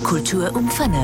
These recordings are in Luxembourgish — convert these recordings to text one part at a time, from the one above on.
Kultur um 5.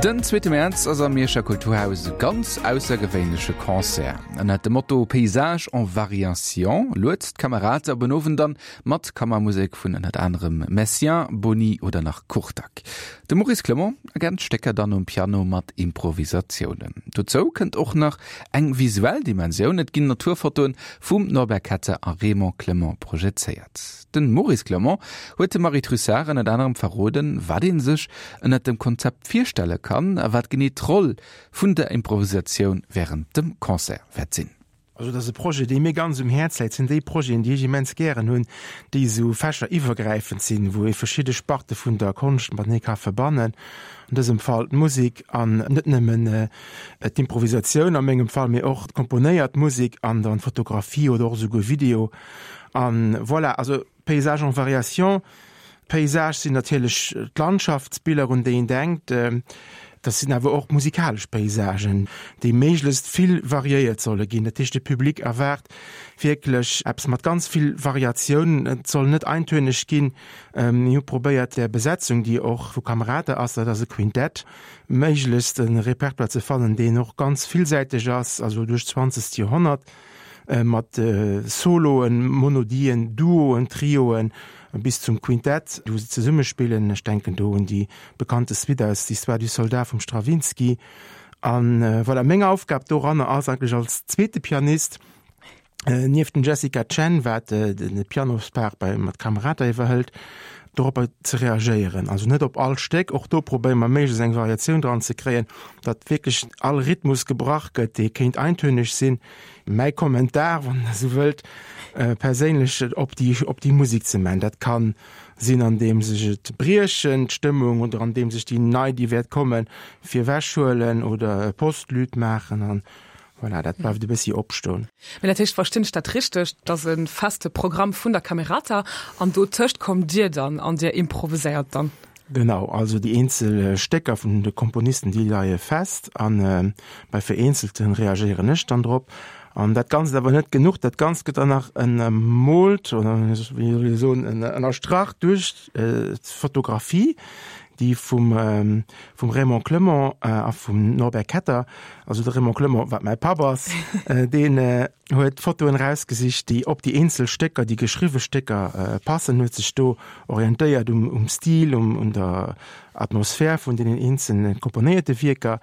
Den zweete Mäerz ass am Mierscher Kulturhaus e ganz aussergewéinleche Concert. Ënnert dem Motto Paysages en variation luet d'Camerata op en Owend an mat Kammermusek vun ënnert anerem Messiaen, Boni oder nach Kurtág. De Maurice Clement ergänzt d'Stécker dann um Piano mat Improvisatiounen. Dozou kënnt och nach eng visuell Dimensioun, et ginn Naturfotoen vum Norbert Ketter a Raymond Clement projezéiert. Den Maurice Clement huet dem Marie Trussart ënnert anerem verroden, wat ee sech ënnert dem Konzept virstelle kann a wat genee d'Roll vun der Improvisatioun wärend dem Concert wäert sinn. Also dat ass e Projet, dee mir ganz um Häerz läit. Dat sinn déi Projeten, déi ech immens gären hunn, déi esou fächeriwwergräifend sinn, wou ee verschidde Sparte vun der Konscht matenee ka verbannen, an dësem Fall d'Musek an net nëmmen d'Improvisatioun a mengem Fall, mee och d'komponéiert Musek an dann d'Fotografie oder och esouguer Video. An voilà, also Paysages en variation. Paysage sinn natierlech d'Landschaftsbiller, un déi een denkt. Dat sinn awer och musikalesch Paysagen, déi méiglechst vill variéiert solle ginn. Dat heescht, de Public erwaart wierklech eppes mat ganz vill Variatioun. Et soll net eintönig ginn. Mir hu probéiert, der Besetzung, déi och vu Camerata ass, dat ass e Quintett, méiglechst e Repertoire ze fannen, deen och ganz villsäiteg ass, also duerch d'zwanzegst Joerhonnert. Mat Soloen, Monodien, Duoen, Trioen bis zum Quintett, wou se zesumme spillen. Ech denken do un déi bekannte Suite aus L'Histoire du soldat vum Stravinsky. A voilà, meng Aufgab doranner ass eigentlech als zweete Pianist, nieft dem Jessica Chen, wat de Pianospart bei mat Camerata iwwerhëlt, doropper ze reagéieren. Also net op all Stéck, och do probéiere mer méiglechst eng Variatioun dran ze kréien, datt wierklech all Rhythmus gebrach gëtt, dee kéint eintönig sinn. Mäi Kommentar, wann Der esou wëllt, perséinlech op déi, op déi Musek ze man. Dat ka sinn, andeems ech et briechen, d'Stëmmung, oder andeems ech déi nei, déi wäert kommen, virwechhuelen oder e Postlude maachen an voilà, dat bleift e bëssi opstoen. Mee dat heescht, verstinn ech dat richteg, dass e feste Programm vun der Camerata an dotëscht kommt Dir dann an Dir improviséiert dann? Genau, also déi eenzel Stécker vun de Komponisten, déi leie fest a bei vereenzelte reagéieren ech dann drop. An dat Ganzt awer net genuch, dat Ganzt gëtt dann nach ënnermoolt oder wéi soll ech soen, ënnerstrach duerch d'Fotografie, déi vum vum Raymond Clement a vum Norbert Ketter, also de Raymond Clement, wat mäi Papp ass, deen huet Fotoen erausgesicht, déi op déi eenzel Stécker, déi geschriwwe Stécker passen, huet sech do orientéiert um, um Stil, um, un der Atmosphär vun deenen eenzelne komponéierte Wierker.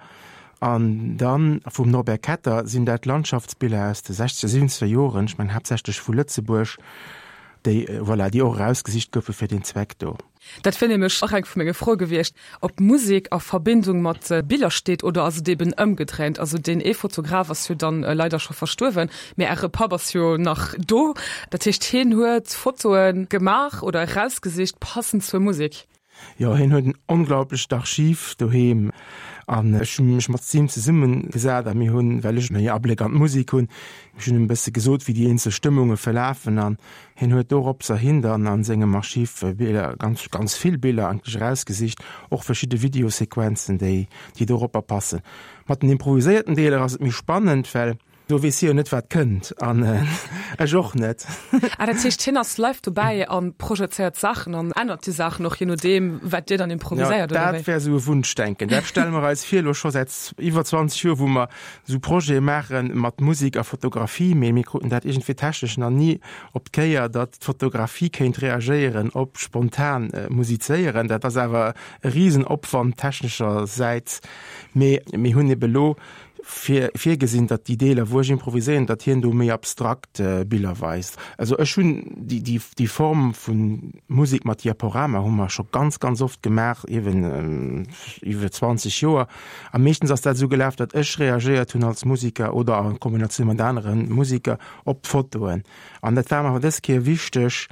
An dann vum Norbert Ketter sinn dat Landschaftsbiller aus de sechzeger, siwwenzeger Joren, ech mengen haaptsächlech vu Lëtzebuerg, déi, voilà, déi och erausgesicht goufe fir deen Zweck do. Dat wier nämlech och eng vu menge Froe gewiescht, ob Musek a Verbindung mat Biller steet oder ass et eben ëmgedréint? Also deen ee Fotograf ass jo dann leider scho verstuerwen, mee Äre Papp ass jo nach do. Dat heescht hien huet Fotoe gemaach oder erausgesicht passend zur Musek? Jo, hien huet en onglaublecht Archiv doheem an ech hu mech mat him zesumme gesat a mir hunn, well ech méi Abléck an d'Musek hunn, ech hunn him e bësse gesot, wéi déi eenzel Stëmmunge verlafen an Hien huet doropserhin dann a sengem Archiv Biller, ganz, ganz vill Biller eigentlech erausgesicht, och verschidde Videosequenzen, déi, déi doropper passen. Mat den improviséierten Deeler ass et méi spannend, well do weess hie jo net, wat kënnt, an ech och net. Ah, dat heescht, hien ass live dobäi a projezéiert Saachen an ännert déi Saachen och, je nodeem, wat Dir dann improviséiert, oder wéi? Dat wär esou e Wunschdenken. Dat stelle mer eis vir, elo scho säit iwwer 20 Joer, wou mer esou Projete maache mat Musek a Fotografie, mee mir kruten dat iergendwéi technesch nach ni op d'Kéier, datt d'Fotografie kéint reagéieren op spontan Musizéieren. Dat ass awer e Risenopwand techneschersäits, mee mir hunn ebe lo vir virgesinn, datt déi Deeler, wou ech improviséieren, datt hien do méi abstrakt Biller weist. Also ech hunn déi, déi, déi Form vu Musek mat Diaporama hu mer scho ganz, ganz oft gemaach, eeben iwwer 20 Joer. A meeschtens ass dat esou gelaf, datt ech reagéiert hunn als Musiker oder a Kombinatioun mat anere Musiker op d'Fotoen. An dat war mer awer dës Kéier wichteg,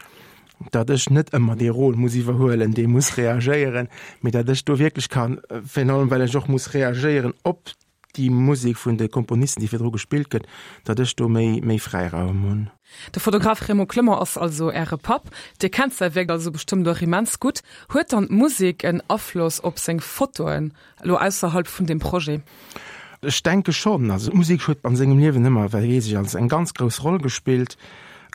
datt ech net ëmmer dee Rôle muss iwwerhuelen, dee muss reagéieren, mee datt ech do wierklech kann, virun allem well ech och muss reagéieren op déi Musek vun de Komponisten, déi virdru gespillt gëtt, datt ech do méi, méi Fräiraum hunn. De Fotograf Raymond Clement ass also Äre Papp. Dir kennt säi Wierk also bestëmmt och immens gutt. Huet dann d'Musek en Afloss op seng Fotoen, elo ausserhalb vun deem Projet? Ech denke schonn. Also d'Musek huet an sengem Liewen ëmmer, well weess ech, als eng ganz grouss Roll gespillt.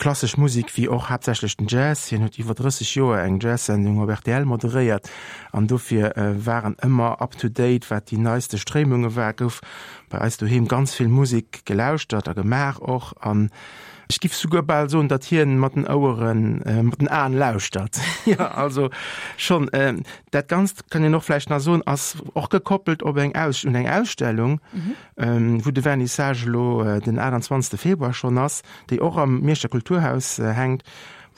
Klassesch Musek wéi och haaptsächlech den Jazz. Hien huet iwwer 30 Joer eng Jazz-Sendung op rtl moderéiert an dofir war en ëmmer up to date wat déi neiste Stréimunge war. Gouf bei eis doheem ganz vill Musek gelauschtert a gemaach och an ech giff souguer bal soen, datt hien mat den Oueren, mat den Aen lauschtert. Jo, also schonn. Dat Ganzt kann een och vläicht nach soen, ass och gekoppelt op eng Aus, un eng Ausstellung, wou de Vernissage elo den 28 Februar schonn ass, déi och am Mierscher Kulturhaus hänkt,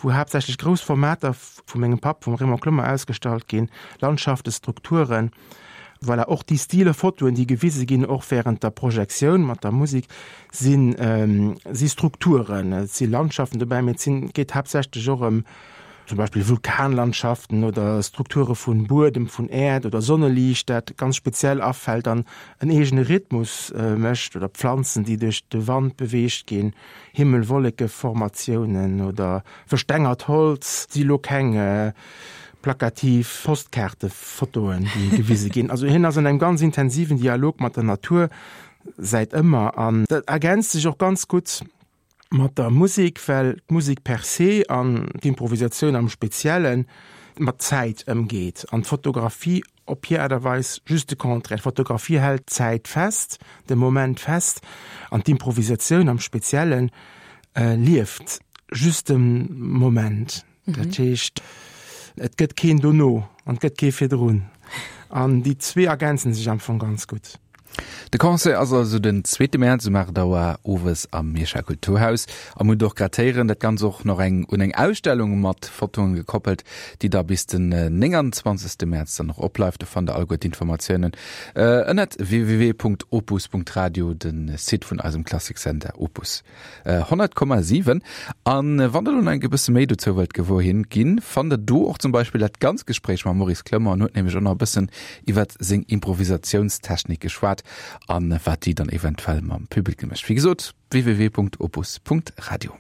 wou haaptsächlech grouss Formater vu mengem Papp, vum Raymond Clement, ausgestallt ginn, Landschaften, Strukturen. Voilà, och déi Stile Fotoen, déi gewise ginn, och während der Projektioun mat der Musik, sinn, si Strukturen. Et si Landschaften dobäi, mee et sinn, et geet haaptsächlech och ëm zum Beispill Vulkanlandschaften oder Strukture vun Buedem, vun Äerd oder Sonneliicht, dat ganz speziell afält an en eegene Rhythmus mécht, oder Pflanzen, déi duerch de Wand beweegt ginn, Himmel-Wolleke-Formatiounen oder verstengert Holz, si lo keng plakativ Postkaartefotoen, déi gewise ginn. Also hien ass an engem ganz intensiven Dialog mat der Natur säit ëmmer an dat ergänzt sech och ganz gutt mat der Musek, well d'Musek per se an d'Improvisatioun am Spezielle mat Zäit ëmgeet an d'Fotografie op hir Aart a Weis just de Contraire. D'Fotografie hält d'Zäit fest, de Moment fest an d'Improvisatioun am Spezielle lieft just de Moment. Dat heescht, et gëtt keen dono an et gëtt kee virdrun. An déi zwee ergänzen sech am Fong ganz gutt. De Concert ass also den zweete Mäerz um 8 Auer owes am Mierscher Kulturhaus. A mir hunn och grad héieren, dat Ganzt och nach eng un eng Ausstellung mat Fotoen gekoppelt, déi da bis den 29. Mäerz dann och opbleift. Do fannt der alleguer d'Informatiounen ënnert www.opus.radio, de Site vun eisem Klassiksender Opus. 100,7. An wann der lo nach eng e bësse méi dozou wëllt gewuer hin ginn, fannt der do och zum Beispill dat ganz Gespréich mam Maurice Clement. En huet nämlech och nach e bëssen iwwert seng Improvisatiounstechnik geschwat an wat déi dann eventuell mam Public mécht. Wéi gesot, www.opus.radio.